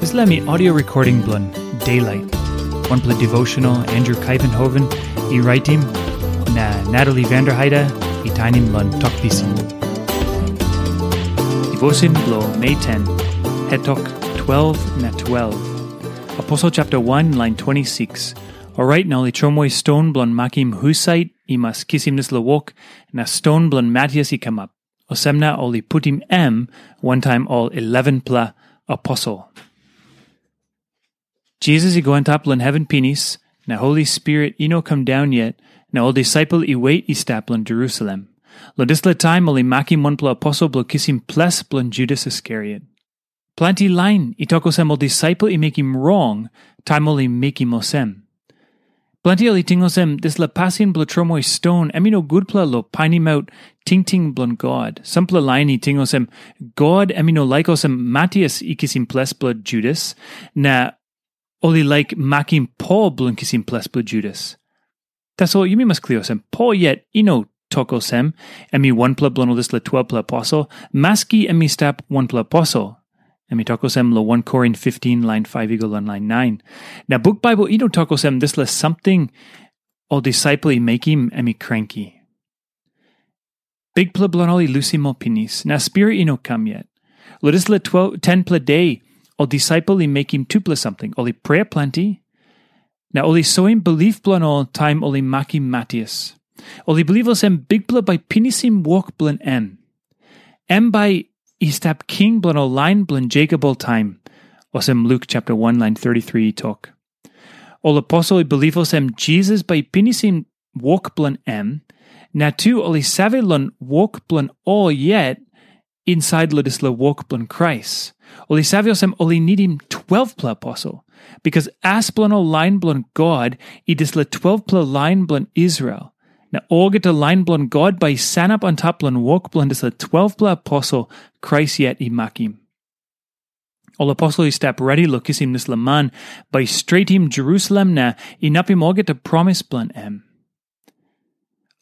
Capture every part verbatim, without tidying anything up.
Dispela mi audio recording bilong Daylight. Wanpela devotional Andrew Kaivenhoven i raitim, na Natalie Vanderheide i tainim long Tok Pisin. Devotion bilong Mei ten, Hetok twelve na twelve. Aposel chapter one, line twenty-six. Orait na ol i tromoi ston bilong makim husat i mas kisim dispela wok, na ston bilong Matias i kamap. Olsem na ol i putim em wantaim ol elevenpela aposel. Jisas i go antap long heven pinis, na Holi Spirit i no kam daun yet, na ol disaipel i wet i stap long Jerusalem. Long dispela taim ol i makim wanpela aposel bilong kisim ples bilong Judas Iskariot. Planti lain i tok olsem ol disaipel i mekim rong taim ol i mekim olsem. Planti ol i ting olsem dispela pasin bilong tromoi ston em i no gutpela long painimaut tingting bilong God. Sampela lain i ting olsem God em i no laik olsem Matias i kisim ples bilong Judas, na ol i laik makim Pol bilong kisim ples bilong Judas. Tasol yumi mas klia olsem, Pol yet i no tok olsem, em i wanpela bilong ol dispela twelpela aposel, maski em i stap wanpela aposel. Em i tok olsem long wan Korin fiftin, lain faiv i go long lain nain. Na buk Baibel i no tok olsem dispela samting ol disaipel i mekim em i kranki. Bikpela bilong ol i lusim ol pinis, na spirit i no kam yet. Long dispela twelve, tenpela de, ol disaipel i mekim tupela samting. Ol i prea planti, na ol i soim bilip bilong ol taim ol i makim Matias. Ol i bilip olsem Bikpela bai pinisim wok bilong em. Em bai i stap king bilong ol lain bilong Jekop oltaim, olsem Luk chapter one, lain thirty-three i tok. Ol aposel i bilip olsem Jisas bai i pinisim wok bilong em, na tu ol i save long wok bilong ol yet insait long dispela wok bilong Krais. Ol i save olsem ol i nidim twelvpela aposel, bikas as bilong ol lain bilong God i dispela twelvpela lain bilong Israel. Na olgeta lain bilong God bai i sanap antap long wok bilong dispela twelvpela aposel Krais yet i makim. Ol aposel i stap redi long kisim dispela man bai i stretim Jerusalem na inapim olgeta promis bilong em.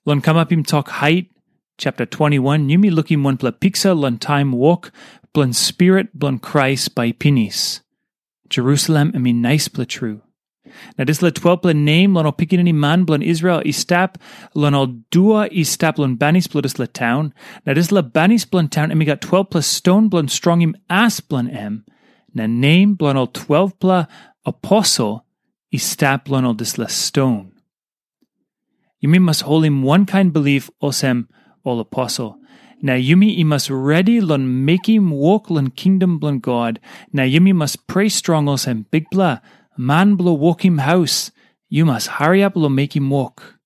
Long kamapim tok hait, chapter twenty-one, yumi lukim wanpela piksa long taim wok bilong Spirit bilong Krais bai i pinis. Jerusalem em i naispela tru. Na dispela twelpela nem long ol pikinini man bilong Israel i stap long ol dua i stap long banis bilong dispela taun. Na dispela banis bilong taun em i gat twelpela ston bilong strongim as bilong em. Na nem bilong ol twelpela aposel i stap long ol dispela ston. Yumi mas holim wankain bilip olsem ol aposel. Na yumi i mas redi long mekim wok long kingdom bilong God, na yumi mas prea strong olsem, Bikpela, man bilong wokim haus, yu mas hariap long mekim wok.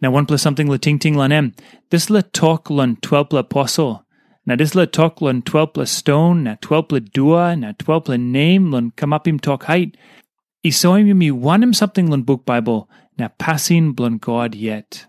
Na wanpela samting long tingting long em, dispela tok long twelpela aposel, na dispela tok long twelpela ston, na twelpela dua, na twelpela nem long kamapim tok hait, i soim yumi wanem samting long buk Baibel na pasin bilong God yet.